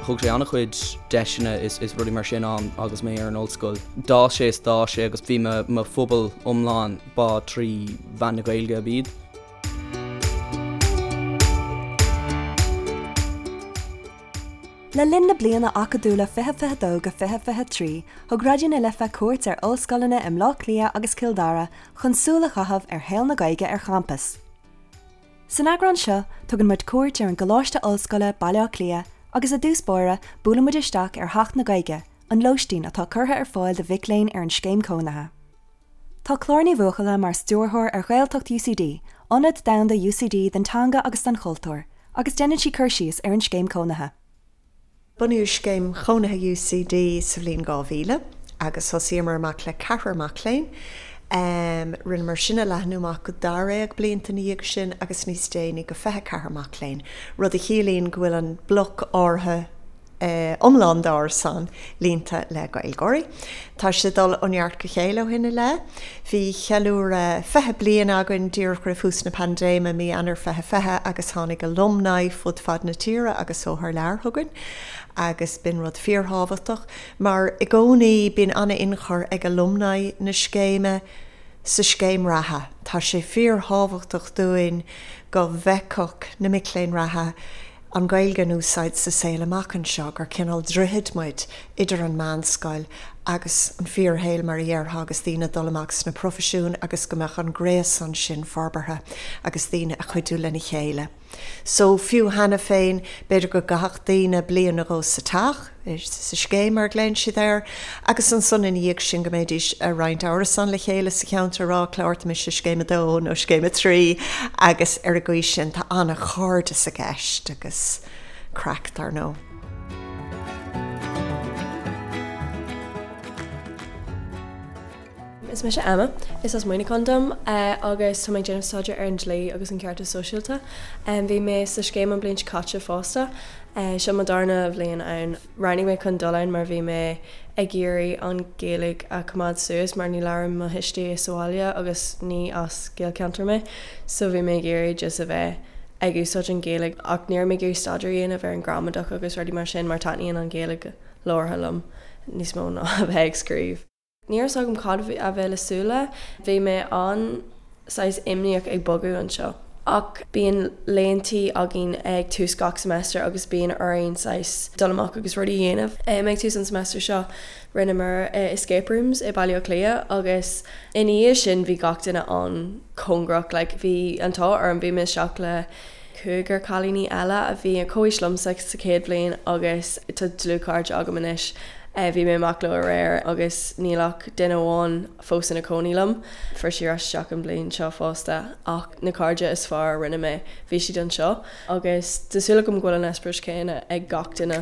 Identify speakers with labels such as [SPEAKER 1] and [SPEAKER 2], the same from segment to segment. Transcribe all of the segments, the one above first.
[SPEAKER 1] Thug sé an-chuid deiseanna is is rudaí mar sin ann agus mé ar an ollscoil. D'fhás sé is d'fhás sé agus bhí mo mo phobal iomlán ba trí mheán na Gaeilge ab iad.
[SPEAKER 2] Le linn na bliana acadúla 2022-2023, thug Raidió na Life cuairt ar ollscoileanna i mBleá Cliath agus Cill Dara chun súil a chaitheamh ar shaol na Gaeilge ar champas. San eagrán seo, tugann muid cuairt ar an gColáiste Ollscoile, Baile Átha Cliath, agus i dtús báire, buaileann muid isteach ar Theach na Gaeilge, an lóistín atá curtha ar fáil do mhic léinn ar an scéim cónaithe. Tá Clár Ní Bhuachalla mar stiúrthóir ar Ghaeltacht UCD, ionad domhanda UCD don teanga agus don chultúr, agus déanann sí cur síos ar an scéim cónaithe.
[SPEAKER 3] Bunaíodh Scéim Chónaithe UCD sa bhliain 2000 agus thosaíomar amach le ceathrar mac léinn. Rinneamar sin a leathnú amach go dáréag blianta ina dhiaidh sin agus níos déanaí go 24 mac léinn, rud a chiallaíonn go bhfuil an bloc áirithe iomlán d'árasán líonta le Gaeilgeoirí. Tá sé ag dul ó neart go chéile ó shin i leith. Bhí ceiliúradh 20 bliain againn díreach roimh thús na paindéime, mí Eanáir 2020, agus tháinig alumni fud fad na tíre agus ó thar lear chugainn agus b'in rud fíorthábhachtach mar i gcónaí bíonn an-ionchur ag alumni na scéime sa scéim reatha. Tá sé fíorthábhachtach dúinn go bhfeicfeadh na mic léinn reatha an Ghaeilge in úsáid sa saol amach anseo, gur cineál droichid muid idir an meánscoil agus an fíorshaol mar a dhéarfá agus daoine ag dul amach sna proifisiúin agus go mbeadh an gréasán sin forbartha agus daoine ag cuidiú lena chéile. So, fiú cheana féin, b'fhéidir go gcaithfeadh daoine bliain nó dhó sa teach, sa scéim mar a ghlaonn siad air, agus ansan ina dhiaidh sin go mbeidís ag roinnt árasán le chéile sa cheantar ag rá Clár, tá mise i scéim a dó nó scéim a trí agus ar an gcaoi sin tá an-chairdeas i gceist agus craic dar ndóigh.
[SPEAKER 4] Is mise Emma, is as Muineachán dom agus tá mé ag déanamh staidéar ar an dlí agus an ceartas sóisialta. Bhí mé sa scéim an bhliain seo caite fosta. Seo mo darna bhliain ann. Roghnaigh mé chun dul ann mar bhí mé ag iarraidh an Ghaeilge a choimeád suas mar ní labhrann mo thuistí é sa bhaile agus ní as Gaelcheantar mé so bhí mé ag iarraidh just a bheith ag úsáid an Ghaeilge ach ní raibh mé ag iarraidh staidéar a dhéanamh ar an gramadach agus rudaí mar sin mar taitníonn an Ghaeilge labhartha liom níos mó ná a bheith ag scríobh. Ní raibh 's agam cad a bheith le súil le. Bhí mé an saghas imníoch ag bogadh anseo. Ach bíonn laethantaí againn ag tús gach semester agus bíonn orainn saghas dul amach agus rudaí a dhéanamh. Ag tús an semester seo rinneamar escape rooms i Baile Átha Cliath agus ina dhiaidh sin bhí gach duine an-chóngarach. Like bhí an t-ádh orm, bhí mé isteach le cúigear cailíní eile a bhí ar comhaois liomsa sa chéad bhliain agus tá dlúthchairde agam anois. Bhí mé amach leo aréir agus níl ach duine amháin fós ina cónaí liom. Fuair sí ar ais isteach an bhliain seo fosta ach na cairde is fearr a rinne mé, bhí siad anseo agus tá súil agam go bhfuil an eispéireas céanna ag gach duine.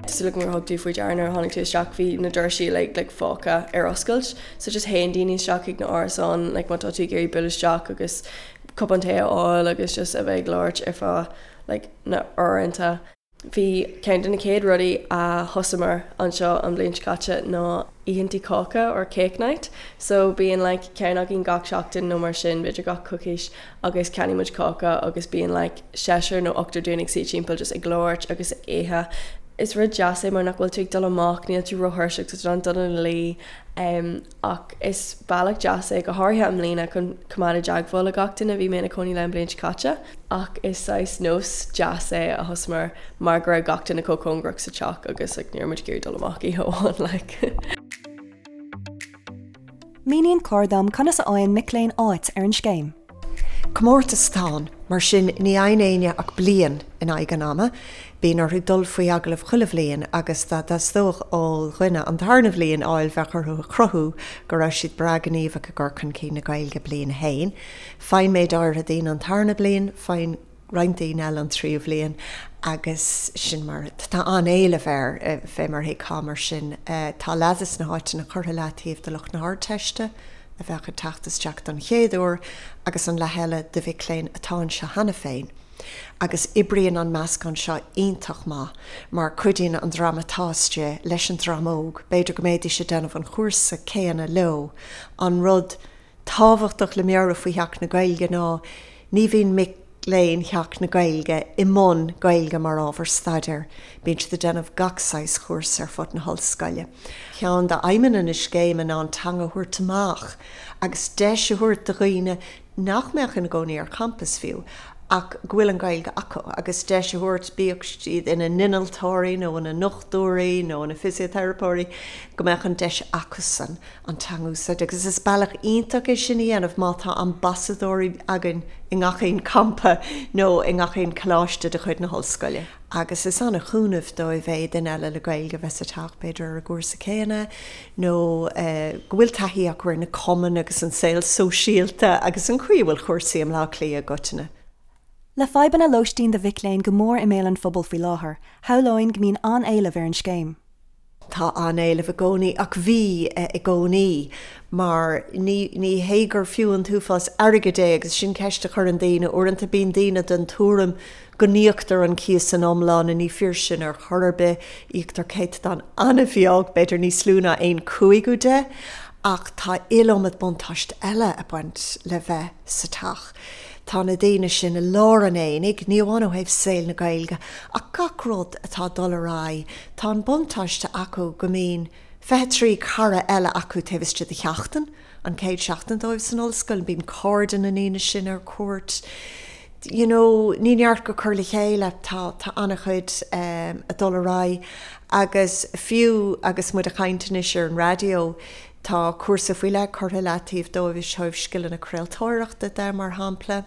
[SPEAKER 4] Tá súil agam gur thug tú faoi deara nuair a tháinig tú isteach bhí na doirsí like like fágtha ar oscailt so just théann daoine isteach chuig na árasáin like má tá tú ag iarraidh bualadh isteach agus cupán tae a fháil agus just a bheith ag labhairt ar feadh like na uaireanta. Bhí ceann de na chéad rudaí a thosamar anseo an bhliain seo caite ná oícheantaí cáca or cake night so bíonn like ceann againn gach seachtain nó mar sin b'fhéidir gach coicís agus ceannaíonn muid cáca agus bíonn like seisear nó ochtar dúinn ag suí timpeall just ag labhairt agus ag ithe. Is rud deas é mar nach bhfuil tú ag dul amach, níl tú róthuirseach, tá tú in ann dul ina luí ach is bealach deas é go háirithe i mbliana chun coimeád i dteagmháil le gach duine a bhí mé ina cónaí le an bhliain seo caite ach is saghas nós deas é a thosamar mar go raibh gach duine chomh cóngarach sa teach agus like ní raibh muid ag iarraidh dul amach oíche amháin like.
[SPEAKER 2] Míníonn Clár dom conas a fhaigheann mic léinn áit ar an scéim.
[SPEAKER 3] Comórtas atá ann, mar sin ní fhaigheann éinne ach bliain in aghaidh an ama. Bíonn orthu dul faoi agallamh chuile bhliain agus dá dteastódh ó dhuine an tarna bhliain a fháil bheadh orthu a chruthú go raibh siad breá gníomhach i gcur chun cinn na Gaeilge bliain a haon. Faigheann méid áirithe daoine an tarna bliain, faigheann roinnt daoine eile an tríú bhliain agus sin mar tá an-éileamh air, fé mar a thuigfeá. Mar sin tá leath des na háiteanna curtha leataobh do lucht na hArdteiste a bheadh ag teacht isteach don chéad uair agus an leath eile do mhic léinn atá anseo cheana féin. Agus oibríonn an meascán seo iontach maith mar cuidíonn an dream atá istigh leis an dream óg, b'fhéidir go mbeidís ag déanamh an chúrsa céanna leo, an rud tábhachtach le meabhrú faoi Theach na Gaeilge ná. Ní bhíonn mic léinn Theach na Gaeilge i mbun Gaeilge mar ábhar staidéir, bíonn siad ag déanamh gach saghas chúrsa ar fud na hollscoile. Ceann d'aidhmeanna na scéime ná an teanga a thabhairt amach agus deis a thabhairt do dhaoine nach mbeadh ina gcónaí ar champas fiú ach go bhfuil an Ghaeilge acu agus deis a thabhairt, bíodh siad ina n-innealtóirí nó ina ndochtúirí nó ina bhfisiteiripeoirí, go mbeadh an deis acusan an teanga a úsáid. Agus is bealach iontach é sin a dhéanamh má tá ambasadóirí againn i ngach aon champa nó i ngach aon choláiste de chuid na hollscoile. Agus is an-chúnamh dóibh é duine eile le Gaeilge a bheith sa teach, b'fhéidir ar an gcúrsa céanna, nó go bhfuil taithí acu ar na cumainn agus an saol sóisialta agus an chaoi a bhfuil cúrsaí i mBleá Cliath i gcoitinne.
[SPEAKER 2] Le fadhbanna lóistín do mhic léinn go mór i mbéal an phobail faoi láthair, shamhlóinn go mbíonn an-éileamh ar an scéim.
[SPEAKER 3] Tá an-éileamh i gcónaí, ach bhí i gcónaí, mar ní ní hé gur fiú an t-uafás airgid é agus sin ceist a chuireann daoine. Uaireanta bíonn daoine den tuairim go n-íoctar an cíos san iomlán, ní fíor sin ar chor ar bith, íoctar céatadán an-bheag, b'fhéidir níos lú ná aon chúigiú de, ach tá iliomad buntáiste eile ag baint le bheith sa teach. Tá na daoine sin i lár an aonaigh, ní amháin ó thaobh saol na Gaeilge, ach gach rud atá ag dul ar aghaidh. Tá an buntáiste acu go mbíonn 23 cara eile acu taobh istigh de sheachtain, an chéad seachtain dóibh san ollscoil, bíonn cairde na ndaoine sin ar cuairt. You know, ní neart go cur le chéile, tá tá an-chuid ag dul ar aghaidh agus fiú agus muid ag caint anois ar an raidió, Tá cúrsa faoi leith curtha i leataobh dóibh ó thaobh scileanna craoltóireachta de, mar shampla.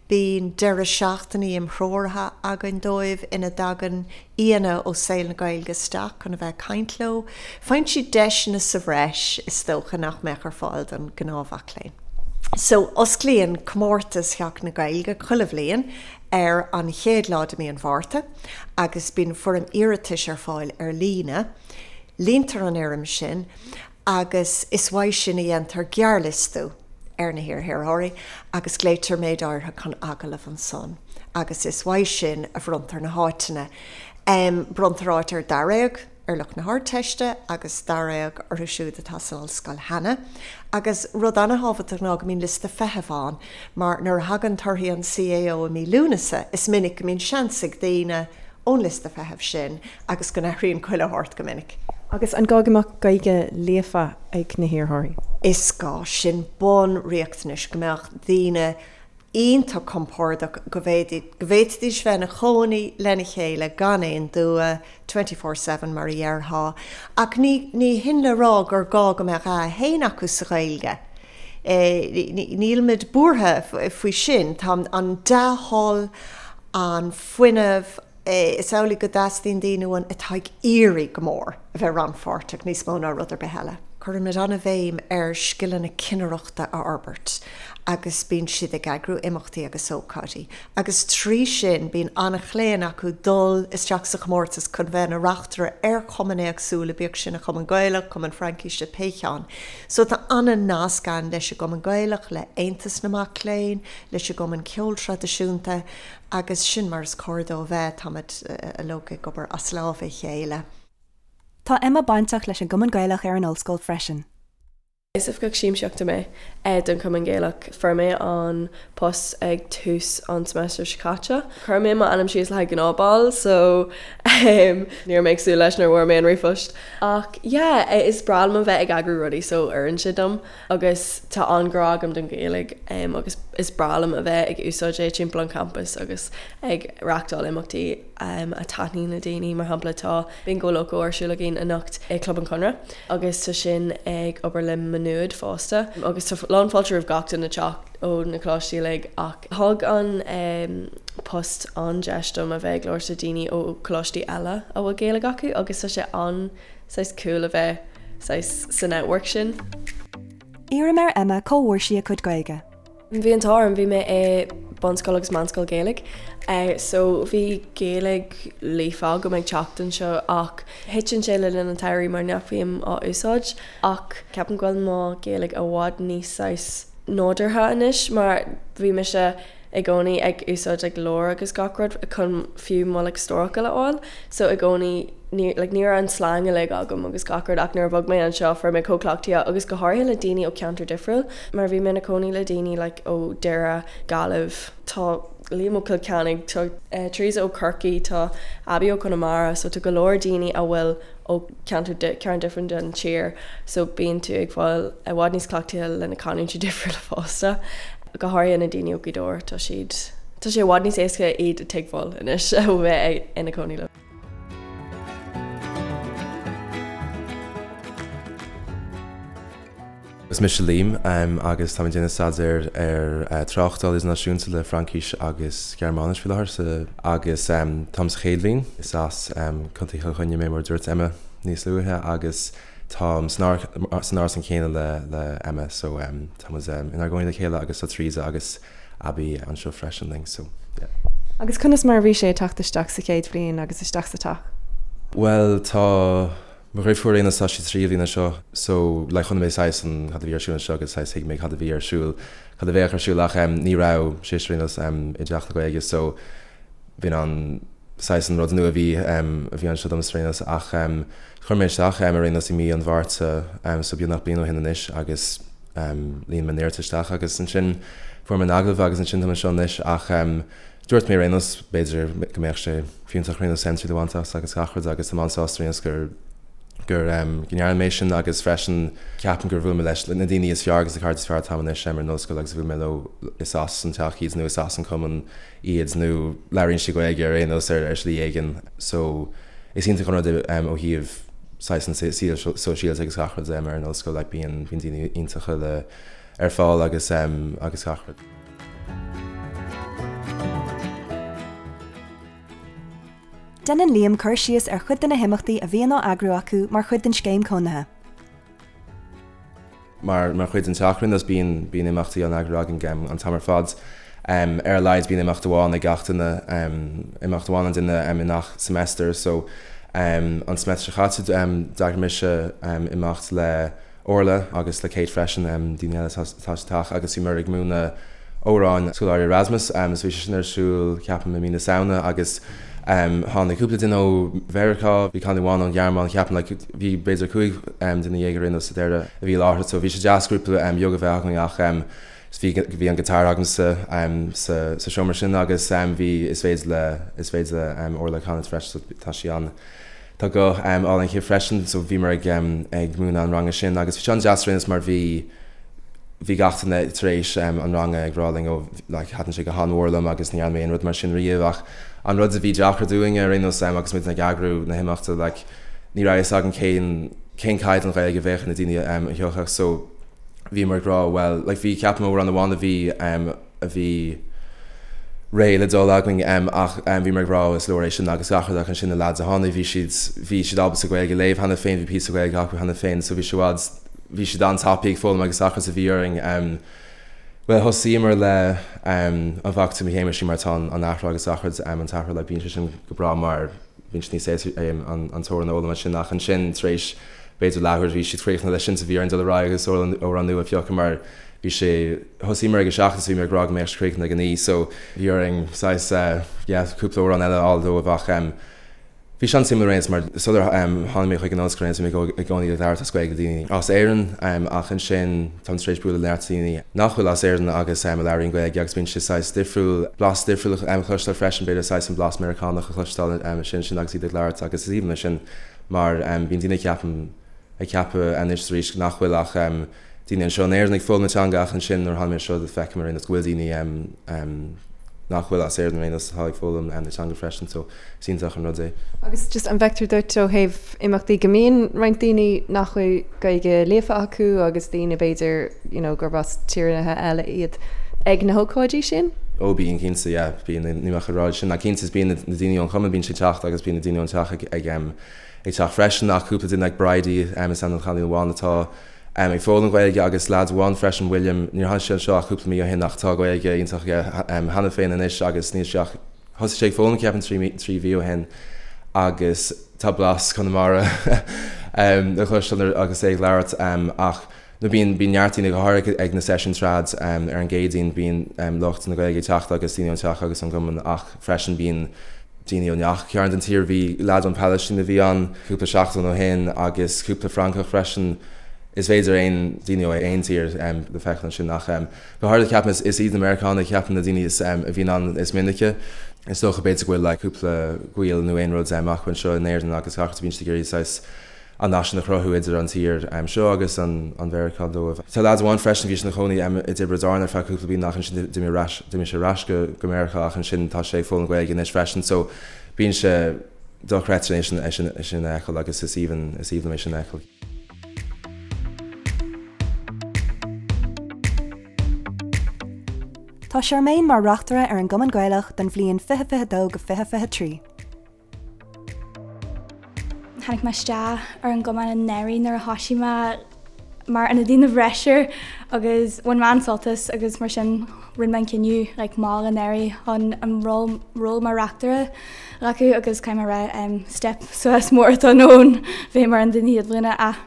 [SPEAKER 3] Bíonn deireadh seachtainí imthreoraithe againn dóibh ina dtagann aíonna ó saol na Gaeilge isteach chun a bheith ag caint leo. Faigheann siad deiseanna sa bhreis, is dócha, nach mbeadh ar fáil don ghnáthmhac léinn. So, osclaíonn comórtas Theach na Gaeilge chuile bhliain ar an chéad lá de mí an Mhárta agus bíonn foirm iarratais ar fáil ar líne. Líontar an fhoirm sin agus is uaidh sin a dhéantar gearrliostú ar na hiarrthóirí agus glaoitear méid áirithe chun agallaimh ansan agus is uaidh sin a bhronntar na háiteanna. Bronntar áit ar daréag ar lucht na hArdteiste agus daréag orthu siúd atá san ollscoil cheana. Agus rud an-thábhachtach ná go mbíonn liosta feithimh ann mar nuair a thagann torthaí an CAO i mí Lúnasa is minic go mbíonn seans ag daoine ón liosta feithimh sin agus go n-athraíonn chuile shórt go minic.
[SPEAKER 4] Agus an gá go mbeadh Gaeilge líofa ag na hiarrthóirí?
[SPEAKER 3] Is gá. Sin bunriachtanais, go mbeadh daoine iontach compordach, go bhféadfaidís bheith ina chónaí lena chéile gan aon dua, 24/7 mar a dhéarfá. Ach ní ní hin le rá gur gá go mbeadh A1 acu sa Ghaeilge. Nílimid buartha faoi sin. Tá an dea-thoil, an fuinneamh, Is amhlaidh go dteastaíonn daoine uainn atá ag iarraidh go mór a bheith rannpháirteach níos mó ná rud ar bith eile. Cuirimid an-bhéim ar scileanna cinnireachta a fhorbairt agus bíonn siad ag eagrú imeachtaí agus ócáidí agus trí sin bíonn an-chlaon acu dul isteach sa chomórtas chun bheith ina reachtaire ar chumainn éagsúla, bíodh sin an Cumann Gaelach, Cumann Fraincise, pé cheann. So tá an-nasc ann leis an gCumann Gaelach, le Aontas na Mac Léinn, leis an gCumann Ceoil Traidisiúnta Agus sin mar is cóir dó a bheith, táimid uilig ag obair as lámha a chéile.
[SPEAKER 2] Tá Emma bainteach leis an gCumann Gaelach ar an ollscoil freisin.
[SPEAKER 4] Is oifigeach siamsaíochta mé don Chumann Gaelach. Fuair mé an post ag tús an seimeastair seo caite. Chuir mé m'ainm síos le haghaidh gnáthbhall so ní raibh mé ag súil leis nuair a fuair mé an ríomhphost. Ach yeah, is breá liom a bheith ag eagrú rudaí so oireann sé dom. Agus tá an-ghrá agam don Ghaeilge agus is breá liom a bheith ag úsáid é timpeall an champais agus ag reáchtáil imeachtaí a taitníonn le daoine. Mar shampla tá Bingo Loco ar siúl againn anocht i Club an Chonradh agus tá sin ag obair le Maigh Nuad fosta agus tá lán fáilte roimh gach duine teacht ó na coláistí uilig ach thug an post an-deis dom a bheith ag labhairt le daoine ó choláistí eile a bhfuil Gaeilge acu agus tá sé an saghas cool a bheith saghas sa network sin.
[SPEAKER 2] Iarraim ar Emma cá bhfuair sí a cuid Gaeilge.
[SPEAKER 4] Bhí an t-ádh orm, bhí mé i bunscoil agus meánscoil Gaeilge so bhí Gaeilge líofa agam ag teacht anseo ach thiteann sé le linn an tsamhraidh mar nach bhím á úsáid ach ceapaim go bhfuil mo Ghaeilge i bhfad níos saghas nádúrtha anois mar bhí mise. i gcónaí ag úsáid like leabhair agus gach rud chun fiú mo like stórfhocail a fháil so i gcónaí ní like ní raibh an slang uilig agam agus gach rud ach nuair a bhog mé anseo fuair mé chomh cleachtaithe agus go háirithe le daoine ó cheantar difriúil mar bhí mé ina cónaí le daoine like ó Doire, Gaillimh, tá Liam ó Cill Chainnigh, tá Teresa ó Chorcaí, tá Abby ó Chonamara so tá go leor daoine a bhfuil ó cheantar cearn difriúil den tír so bíonn tú ag fáil i bhfad níos cleachtaithe le na canúintí difriúla fosta. Go háirithe na daoine ó Ghaoth Dobhair, tá siad, tá sé i bhfad níos éasca iad a tuigbheáil anois ó bheith ina cónaí leo.
[SPEAKER 5] Is mise Liam agus táim ag déanamh staidéir ar Tráchtáil Idirnáisiúnta le Fraincis agus Gearmáinis faoi láthair sa agus táim sa chéad bhliain. Is as Contae Chill Chainnigh mé mar a dúirt Emma níos luaithe agus táim san árasán céanna le le Emma so tá muid inár gcónaí le chéile agus tá Teresa agus Abby anseo freisin linn so yeah.
[SPEAKER 2] Agus conas mar a bhí sé ag teacht isteach sa chéad bhliain agus isteach sa teach?
[SPEAKER 5] Bhuel tá Mo dhriofúr ar aon nós tá sí sa tríú bhliain anseo so like chonaic mé saghas an cad a bhí ar siúl anseo agus saghas thuig mé cad a bhí ar siúl cad a bheadh ar siúl ach em ní raibh sise ar aon nós em i dteach na Gaeilge so b'in an saghas an rud nua a bhí em a bhí anseo domsa ar aon nós ach em chuir mé isteach em ar aon nós i mí an Mhárta em so beagnach bliain ó shin anois agus em líon mé an iarratas isteach agus ansin fuair mé an agallamh agus ansin táim anseo anois ach em Dúirt mé ar aon nós, b'fhéidir go mbeadh sé fiúntach ar aon nós triail a bhaint as agus gach rud agus táim an-sásta ar aon nós gur gur go ndearna mé sin agus freisin ceapaim gur bhuail mé leis na daoine is fearr agus na cairde is fearr atá agam anois ar an ollscoil agus bhuail mé leo is as an teach iad nó is as an cumann iad nó labhraíonn siad Gaeilge ar aon nós ar ar shlí éigin so is iontach an rud é ó thaobh saghas an saol sóisialta agus gach rud ar an ollscoil like bíonn bíonn daoine iontacha le ar fáil agus agus gach rud.
[SPEAKER 2] Déanann Liam cur síos ar chuid de na himeachtaí a bhíonn á eagrú acu mar chuid den scéim cónaithe.
[SPEAKER 5] Mar mar chuid den teach ar aon nós bíonn bíonn imeachtaí á n-eagrú againn an t-am ar fad. Ar a laghad bíonn imeacht amháin ag gach duine, imeacht amháin an duine i ngach semester so an semester seo caite d'eagraigh mise imeacht le Orla agus le Kate freisin, daoine eile atá sa teach agus bhíomar ag múineadh amhráin scoláirí Erasmus so bhí sé sin ar siúl ceapaim i mí na Samhna agus tháinig cúpla duine ó Mheiriceá, bhí cailín amháin ón Ghearmáin ceapaim like bhí b'fhéidir 15 duine ar aon nós sa deireadh a bhí i láthair so bhí sé deas grúpa beag a bheith againn ach bhí bhí an guitar agamsa sa sa seomra sin agus bhí is féidir le is féidir le Orla canadh freisin so tá sí an Tá guth álainn aici freisin so bhíomar ag ag múineadh an ranga sin agus bhí sé an-deas ar aon nós mar bhí bhí gach duine tar éis an ranga ag rá linn ó like thaitin sé go han-mhór liom agus ní dhearna mé aon rud mar sin riamh ach an rud a bhí deacair dúinne ar aon nós agus muid ag eagrú na himeachta like ní raibh fhios againn cén cén caighdeán Ghaeilge a bheadh ag na daoine a thiocfadh so bhíomar ag rá well like bhí ceapaim amhrán amháin a bhí a bhí réidh le dul againn ach bhíomar ag rá is leor é sin agus gach rud ach ansin na lads a tháinig bhí siad bhí siad ábalta Gaeilge a léamh cheana féin bhí píosa Gaeilge acu cheana féin so bhí sé i bhfad bhí siad an-tapaidh ag foghlaim agus gach rud so bhí orainn bhuel thosaíomar le An bhfaca tú mo Shéamuis mar tá an athrá agus gach rud an t-athrá like bíonn sé sin go breá mar bíonn sé níos éasca an t-amhrán a fhoghlaim ansin ach ansin tar éis b'fhéidir leathuair bhí siad críochnaithe leis sin so bhí orainn dul ar aghaidh agus amhrán nua a phiocadh mar bhí sé, thosaíomar ag a 7 is bhí mé ag rá go mbeadh sé críochnaithe ag a 9 so bhí orainn saghas yeah cúpla amhrán eile a fháil dóibh ach bhí sé an-suimiúil ar aon nós mar sular tháinig mé chuig an ollscoil ar aon nós bhí mé i gcónaí ag labhairt as Gaeilge le daoine as Éirinn ach ansin táim tar éis bualadh le neart daoine nach bhfuil as Éirinn agus a labhraíonn Gaeilge agus bíonn sé saghas difriúil, blas difriúil a chloisteáil freisin b'fhéidir saghas an blas Meiriceánach a chloisteáil ansin sin agus iad ag labhairt agus is aoibhinn liom sin mar bíonn daoine ceapaim ag ceapadh anois arís nach bhfuil ach daoine anseo in Éirinn ag foghlaim na teanga ach ansin nuair a tháinig mé anseo feicim ar aon nós go bhfuil daoine nach bhfuil as Éirinn ar aon nós atá ag foghlaim na teanga freisin so is iontach an rud é.
[SPEAKER 2] Agus just an bhfeictear duit ó thaobh imeachtaí go mbíonn roinnt daoine nach bhfuil Gaeilge líofa acu agus daoine b'fhéidir you know gurb as tíortha eile iad ag na hócáidí sin?
[SPEAKER 5] Ó bíonn cinnte yeah bíonn ní bheadh a rá sin ach cinnte is bíonn na daoine ón chumann bíonn siad ag teacht agus bíonn na daoine ón teach ag ag ag teacht freisin ach cúpla duine like Bridie is ainm don chailín amháin atá ag foghlaim Gaeilge agus leaid amháin freisin William níor tháinig sé anseo ach cúpla mí ó shin ach tá Gaeilge iontach aige cheana féin anois agus níl sé ach thosaigh sé ag foghlaim ceapaim 3 mhí ó shin agus tá blas Conamara le cloisteáil agus é ag labhairt ach. Nó bíonn, bíonn neart daoine, go háirithe ag na seisiúin trad ar an gCéadaoin, bíonn lucht na Gaeilge ag teacht agus daoine ón teach agus ón gcumann ach freisin bíonn daoine ó ngach cearn den tír. Bhí leaid ón Phalaistín a bhí ann cúpla seachtain ó shin agus cúpla Francach freisin. Is féidir aon daoine ó aon tír le feiceáil ansin ach go háirithe ceapaim is iad na Meiriceánaigh ceapaim na daoine is a bhíonn ann is minice. Is dócha b'fhéidir go bhfuil like cúpla gaol nó aon rud acu anseo in Éirinn agus gach rud bíonn siad ag iarraidh saghas an nasc sin a chruthú idir an tír seo agus an Mheiriceá dóibh. Tá leaid amháin freisin, bhí sé ina chónaí i dTiobraid Árann ar feadh cúpla bliain ach ansin d'imigh ar ais, d'imigh sé ar ais go go Meiriceá ach ansin tá sé ag foghlaim Gaeilge anois freisin so bíonn sé dochreidte é sin é sin é sin a fheiceáil agus is aoibhinn is aoibhinn liom é sin a fheiceáil.
[SPEAKER 2] Tá Charmaine mar reachtaire ar an gCumann Gaelach don bhliain 2022-2023.
[SPEAKER 6] Tháinig mé isteach ar an gcumann anuraidh nuair a thoisigh mé mar ionadaí na bhfreisear agus bhain mé an-sult as agus mar sin rinne mé an cinneadh like mall anuraidh chun an ról ról mar reachtaire a ghlacadh agus caithfidh mé a rá um, step suas mór atá ann bheith mar ionadaí na chéad bhliana ach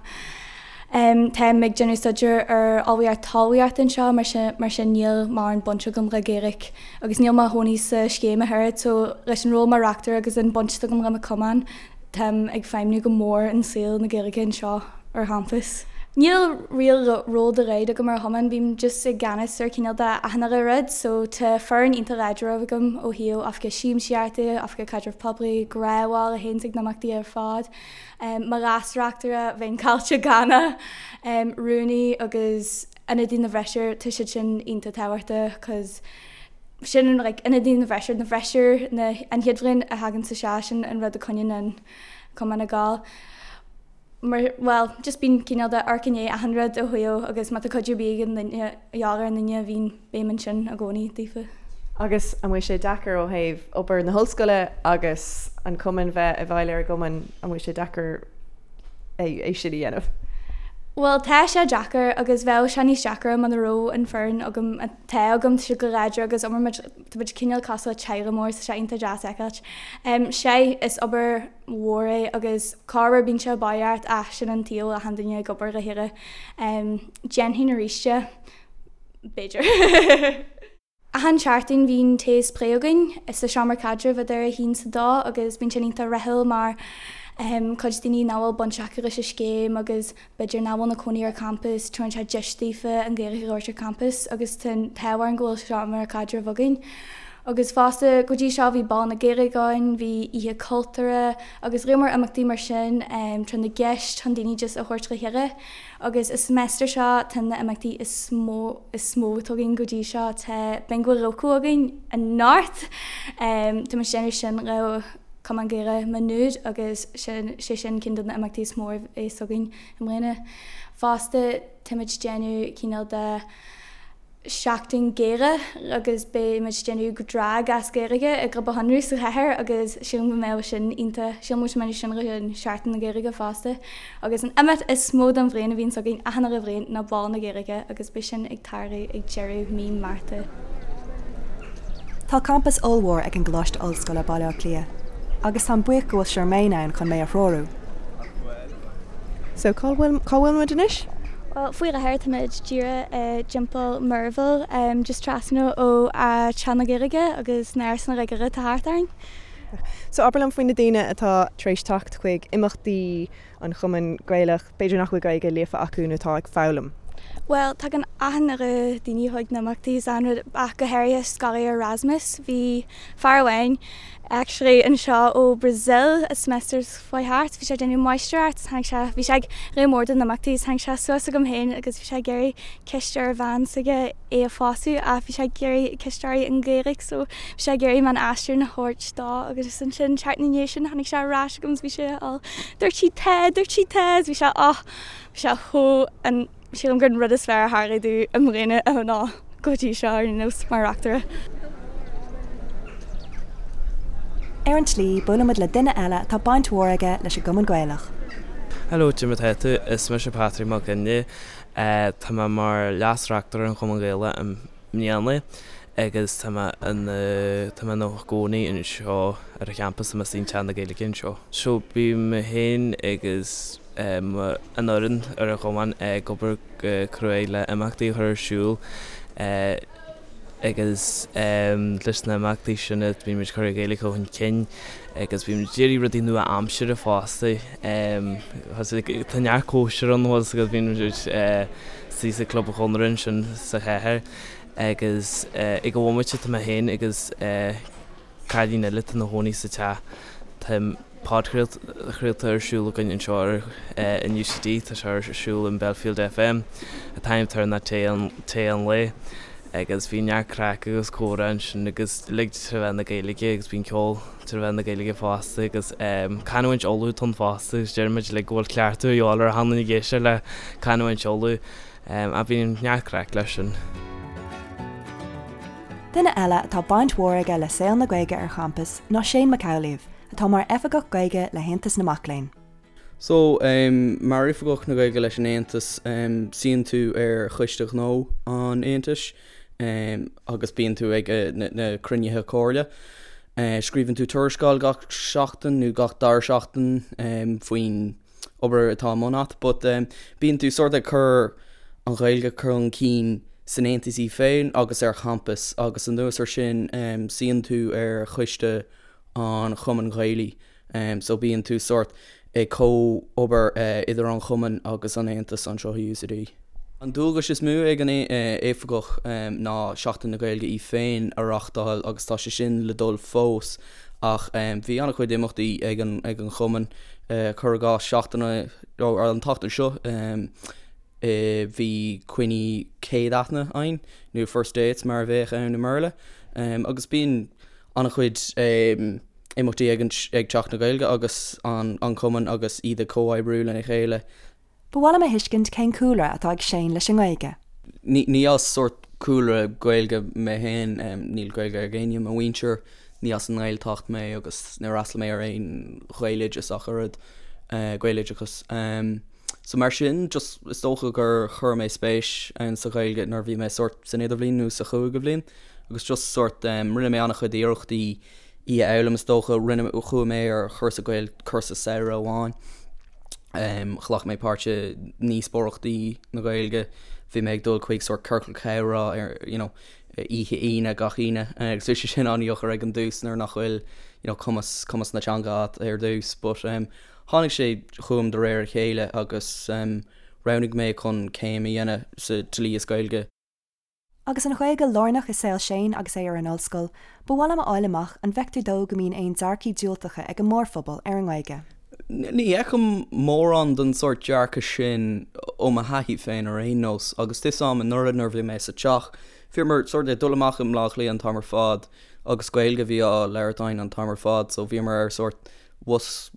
[SPEAKER 6] um, táim ag déanamh staidéar ar ullmhaíocht talmhaíochta anseo mar sin, mar sin níl mórán baint agam le Gaeilge agus níl mé i mo chónaí sa scéim ach oiread so leis an ról mar reachtaire agus an baint atá agam le mo cumann táim ag feidhmniú go mór in saol na Gaeilge anseo ar champas. Níl real ról dá laghad agam ar chumann, bím just i gceannas ar cineál de achan uile rud so tá foireann iontach láidir agam ó thaobh oifigeach siamsaíochta, oifigeach caidreamh poiblí, gnáthbhaill a théanns ag na himeachtaí ar fad, mo leas-reachtaire, bheinn caillte gan é, rúnaí agus ionadaí na bhfreisear, tá siad sin iontach tábhachtach cos sin an like ionadaí na bhfreisear, na bhfreisear na an chéad bhliain a thagann isteach sin an rud a choinníonn an cumann ag gabháil. Mar bhuel just bíonn cineál de amharc i ndiaidh achan rud ó thaobh agus má tá cuidiú ar bith ag an duine a dhíobháil ar an duine bhíonn bím ansin i gcónaí daofa.
[SPEAKER 4] Agus an bhfuil sé deacair ó thaobh obair na hollscoile agus an cumann bheith i bhfeighil ar an gcumann, an bhfuil sé deacair é sin a dhéanamh?
[SPEAKER 6] Bhuel, tá sé deacair agus bheadh sé níos deacra muna raibh an foireann agam atá agam, tá siad go láidir agus oibríonn muid, tá muid cineál cosúil le teaghlach mór, tá sé iontach deas a fheiceáilt. Sea, is obair mhór é agus corruair bíonn sé baoth ort ach sin an tsaol, achan duine ag obair le chéile. Déanfainn arís é, b'fhéidir. Achan seachtain bhíonn tae is plé againn sa seomra caidrimh idir a haon 's a dó agus bíonn sin iontach rathúil mar cuid daoine nach bhfuil baint acu leis an scéim agus b'fhéidir nach bhfuil ina cónaí ar campas, tugann sé deis daofa an Ghaeilge a labhairt ar campas agus tá an t-ádh orainn go bhfuil seomra caidrimh againn. Agus fosta go dtí seo bhí Bál na Gaeilge ann, bhí Oíche Cultúrtha agus lear mór imeachtaí mar sin, tráth na gceist chun daoine just a thabhairt le chéile. Agus an semester seo tá na imeachtaí is mó is mó atá againn go dtí seo, tá Bingo Loco againn anocht! Tá muid ag déanamh sin le Cumann Gaelach Maigh Nuad agus sin sé sin ceann de na imeachtaí is mó a bheas againn i mbliana. Fosta tá muid ag déanamh cineál de Seachtain Gaeilge agus beidh muid ag déanamh drag as Gaeilge i gClub an Chonradh sa chathair agus sílim go mbeadh sin iontach, sílim go mbeidh sin le Seachtain na Gaeilge fosta. Agus an imeacht is mó don bhliain a bhíonns againn achan uile bhliain ná Bál na Gaeilge agus beidh sin ag tarlú ag deireadh mí Márta.
[SPEAKER 2] Tá campas ollmhór ag an gColáiste Ollscoile, Baile Átha Cliath, agus táim buíoch go bhfuil Charmaine ann chun mé a threorú.
[SPEAKER 4] So cá bhfuil, cá bhfuil muid anois?
[SPEAKER 6] Bhuel, faoi láthair táimid díreach i dTeampall Merville, just trasna ó Teach na Gaeilge agus na árasáin uilig atá thart orainn.
[SPEAKER 4] So abair liom faoi na daoine atá tar éis teacht chuig imeachtaí an Chumainn Gaelach, b'fhéidir nach bhfuil Gaeilge líofa acu nó atá ag foghlaim.
[SPEAKER 6] Bhuel, tagann achan uile daoine chuig na imeachtaí is an rud, ach go háirithe scoláirí Erasmus. Bhí fear amháin actually anseo ó Brazil an semester seo chuaigh thart, bhí sé ag déanamh máistreacht, tháinig sé, bhí sé ag lear mór de na himeachtaí is tháinig sé suas chugam féin agus bhí sé ag iarraidh ceist ar bhean s'aige é a phósadh ach bhí sé ag iarraidh ceist uirthi i nGaeilge so bhí sé ag iarraidh mé an aistriúchán a thabhairt dó agus ansin seachtain ina dhiaidh sin tháinig sé ar ais chugam is bhí sé all dúirt sí tá, dúirt sí tá is bhí sé oh bhí sé chomh an Sílim gur an rud is fearr a tharlaigh domh i mbliana ná go dtí seo ar aon nós mar reachtaire.
[SPEAKER 2] Ar an tslí, buailimid le duine eile atá baint mhór aige leis an gCumann Gaelach.
[SPEAKER 7] Hello, cad é mar atá tú? Is mise Patrick Mac Fhionnghaile. Tá mé mar leas-reachtaire an Chumann Gaelach i mbliana agus tá mé ina tá mé ina gcónaí anseo ar an champas, tá mé istigh in Teach na Gaeilge anseo. So bím mé féin agus. an fhoireann ar an chumann ag obair go cruaidh le imeachtaí a chur ar siúl agus leis na himeachtaí sin bíonn muid ag cur an Ghaeilge chun cinn agus bíonn muid ag iarraidh rudaí nua-aimseartha fosta. Tá neart cóisir ann agus bíonn muid istigh sa Club an Chonradh ansin sa chathair agus ag an bhomaite tá mé féin agus cailín eile atá ina chónaí sa teach. Tá podchraolta ar siúl againn anseo ar in UCD, tá sé ar siúl in Belfield FM. An t-ainm atá air ná Tae Tae an Lae agus bíonn neart craic agus comhrá ansin agus uilig tré mheán na Gaeilge agus bíonn ceol tré mheán na Gaeilge fosta agus canúint Uladh atá ann fosta agus deir muid uilig go bhfuil cleachtadh a dhíobháil ar achan duine ag éisteacht le canúint Uladh. Ach bíonn neart craic leis sin.
[SPEAKER 2] Duine eile atá baint mhór aige le saol na Gaeilge ar champas ná Shane Mac Amhlaoibh, atá mar Oifigeach Gaeilge le hAontas na Mac Léinn.
[SPEAKER 1] So, mar Oifigeach na Gaeilge leis an Aontas, suíonn tú ar Choiste Gnó an Aontais agus bíonn tú ag na cruinnithe comhairle. Scríobhann tú tuarascáil gach seachtain nó gach dara seachtain faoin obair atá i mbun a't but bíonn tú sort ag cur an Ghaeilge chun cinn san Aontas í féin agus ar champas agus anuas ar sin suíonn tú ar choiste an Chumainn Ghaelaigh so bíonn tú sort ag comh-obair idir an Chumann agus an Aontas anseo i UCD. An dualgas is mó ag an oifigeach ná Seachtain na Gaeilge í féin a reachtáil agus tá sé sin le dul fós ach bhí an-chuid imeachtaí ag an ag an Chumann, cuir i gcás seachtain an tseachtain seo bhí coinní céad aithne againn nó first dates mar a bheadh ann i mBéarla agus bíonn an-chuid imeachtaí ag ag Seachtain na Gaeilge agus an an Cumann agus iad ag comhoibriú lena chéile.
[SPEAKER 2] Ba mhaith liom a thuiscint cén cúlra atá ag Shane leis an nGaeilge.
[SPEAKER 1] Ní as sórt cúlra Gaeilge mé féin, níl Gaeilge ag éinne i mo mhuintir, ní as an nGaeltacht mé agus níor fhreastail mé ar aon Ghaeloideas ach oiread, Gaeloideachas. So mar sin, just is dócha gur chuir mé spéis ann sa Ghaeilge nuair a bhí mé sórt san idirbhliain nó sa chúigiú bhliain agus just sórt rinne mé an-chuid iarrachtaí í a fhoghlaim is dócha, rinne, chuaigh mé ar chúrsa Gael, cúrsa samhraidh amháin. Ghlac mé páirt i ndíospóireachtaí na Gaeilge, bhí mé ag dul chuig sórt ciorcal comhrá ar you know oíche Aoine gach Aoine agus bhí sé sin an-deacair ag an dtús nuair nach bhfuil you know cumas cumas na teanga agat ar dtús but tháinig sé chugam de réir a chéile agus roghnaigh mé chun céim a dhéanamh sa dlí is Gaeilge.
[SPEAKER 2] Agus an Ghaeilge lárnach i saol Shane agus é ar an ollscoil, ba mhaith liom a fháil amach an bhfeictear dó go mbíonn aon dearcaí diúltacha ag an mórphobal ar an nGaeilge.
[SPEAKER 1] Ní fheicim mórán den sórt dearcadh sin ó mo thaithí féin ar aon nós, agus tá 'fhios a'm anuraidh nuair a bhí mé sa teach, bhíomar sórt ag dul amach i mBleá Cliath an t-am ar fad agus Gaeilge a bhí á labhairt againn an t-am ar fad so bhíomar ar sórt bhus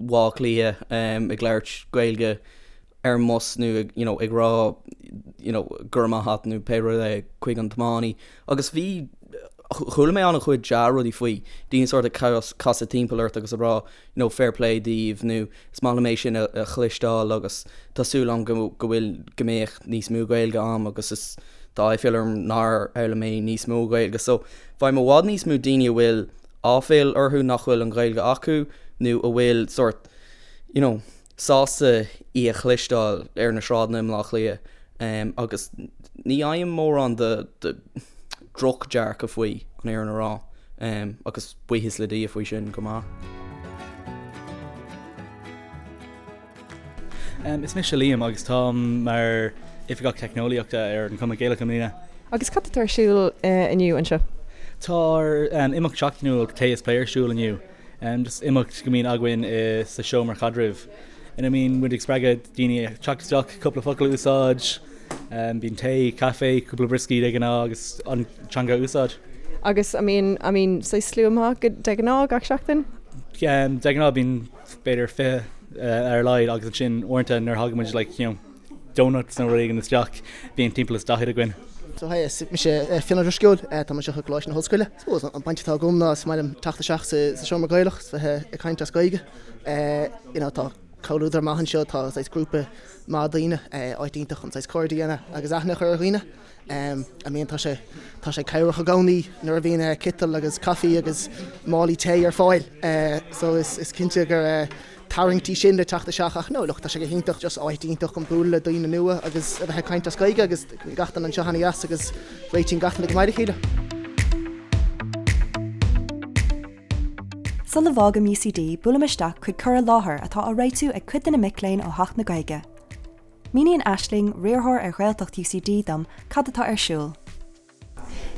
[SPEAKER 1] Bhaile Átha Cliath ag labhairt Gaeilge ar an mbus nó ag you know ag rá you know go raibh maith a't nó pé rud é chuig an tiománaí agus bhí chuala mé an-chuid dea-rudaí faoi, daoine sort ag casadh timpeall ort agus ag rá you know fair play daoibh nó is maith liom é sin a chloisteáil agus tá súil agam go go bhfuil go mbeadh níos mó Gaeilge a'm agus is tá aiféal orm nár fhoghlaim mé níos mó Gaeilge so faighim i bhfad níos mó daoine a bhfuil áiféal orthu nach bhfuil an Ghaeilge acu nó a bhfuil sort you know sásta í a chloisteáil ar na sráideanna i mBleá Cliath agus ní fhaighim mórán de dhroch-dearcadh faoi, an fhírinne a rá, agus buíochas le Dia faoi sin go maith.
[SPEAKER 8] Is mise Liam agus táim mar Oifigeach Teicneolaíochta ar an Chumann Gaelach i mbliana.
[SPEAKER 4] Agus cad atá ar siúl inniu anseo?
[SPEAKER 8] Tá ár imeacht seachtainiúil Tae is Plé ar siúl inniu. Just imeacht go mbíonn againn sa seomra caidrimh ina mbíonn muid ag spreagadh daoine teacht isteach, cúpla focal a úsáid, bíonn tae, caife, cúpla brioscaí de ghnáth agus an teanga a úsáid.
[SPEAKER 4] Agus an mbíonn, an mbíonn saghas slua maith de ghnáth gach seachtain?
[SPEAKER 8] De ghnáth bíonn b'fhéidir 20 ar a laghad agus ansin uaireanta nuair a thagann muid like you know donuts nó rud éigin isteach, bíonn timpeall is 40 againn.
[SPEAKER 9] So hi, is mise Fionn Ó Drisceoil, tá mé anseo i gColáiste na hOllscoile. Suppose an baint atá agam ná is maith liom teacht isteach sa seomra Gaelach is bheith ag caint as Gaeilge. You know tá comhluadar maith anseo, tá saghas grúpa maith daoine, áit iontach chun saghas cairde a dhéanamh agus aithne a chur ar dhaoine. I mean tá sé tá sé cabhrach i gcónaí nuair a bhíonn citeal agus caife agus málaí tae ar fáil. So is is cinnte gur. tarraingtí sin le teacht isteach ach no look tá sé go hiontach just áit iontach chun bualadh le daoine nua agus a bheith ag caint as Gaeilge agus gach duine anseo ana-dheas agus réitíonn gach duine go maith le chéile.
[SPEAKER 2] Sula bhfágaim UCD buailim isteach chuig cur i láthair atá á réitiú ag cuid de na mic léinn ó Theach na Gaeilge. Míníonn Aisling, riarthóir ar Ghaeltacht UCD dom cad atá ar siúl.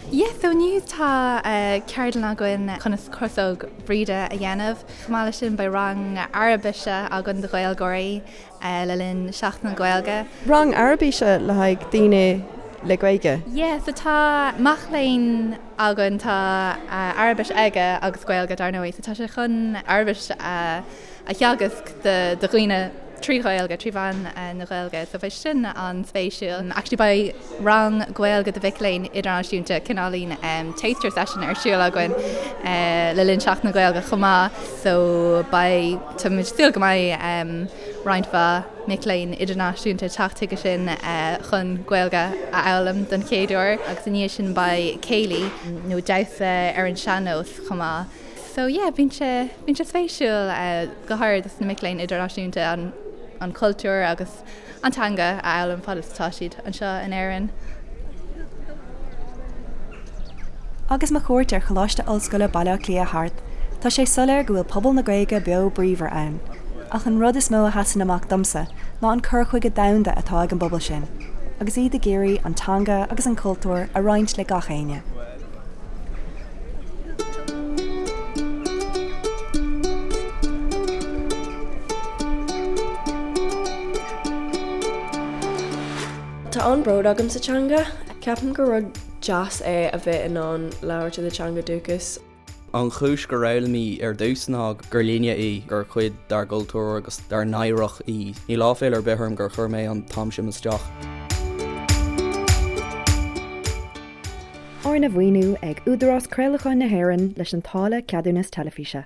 [SPEAKER 10] Yeah, so inniu tá ceardlann againn conas crosóg Bhríde a dhéanamh. Chomh maith leis sin beidh rang Araibise againn do Ghaeilgeoirí le linn Seachtain na Gaeilge.
[SPEAKER 4] Rang Araibise le haghaidh daoine le Gaeilge?
[SPEAKER 10] Yeah, so tá mac léinn againn, tá Araibis aige agus Gaeilge dar ndóigh, so tá sé chun Araibis a a theagasc do dhaoine trí Ghaeilge, trí mheán na Gaeilge. So beidh sin an-spéisiúil. Actually beidh rang Gaeilge do mhic léinn idirnáisiúnta, cineáilín taster session ar siúl againn le linn Seachtain na Gaeilge chomh maith. So beidh, tá muid ag súil go mbeidh roinnt mhaith mic léinn idirnáisiúnta ag teacht chuige sin chun Gaeilge a fhoghlaim don chéad uair. Agus i ndiaidh sin beidh céilí nó damhsa ar an sean-nós chomh maith. So yeah, bíonn sé, bíonn sé spéisiúil go háirid dos na mic léinn idirnáisiúnta an, an cultúr agus an teanga a fhoghlaim fad is atá siad anseo in Éirinn.
[SPEAKER 2] Agus mo chuairt ar Choláiste Ollscoile Baile Átha Cliath thart, tá sé soiléir go bhfuil pobal na Gaeilge beo bríomhar ann. Ach an rud is mó a sheasann amach domsa ná an cur chuige domhanda atá ag an bpobal sin, agus iad ag iarraidh an teanga agus an cultúr a roinnt le gach éinne.
[SPEAKER 4] Tá an-bhród agam sa teanga. Ceapaim gur rud deas é a bheith in ann labhairt i do teanga dúchais.
[SPEAKER 1] An chúis gur fhoghlaim í ar dtús ná gur linne í, gur cuid dár gcultúr agus dár n-oidhreacht í. Níl áiféala ar bith orm gur chuir mé an t-am sin isteach.
[SPEAKER 2] Arna mhaoiniú ag Údarás Craolacháin na hÉireann leis an táille Ceadúnas Teilifíse.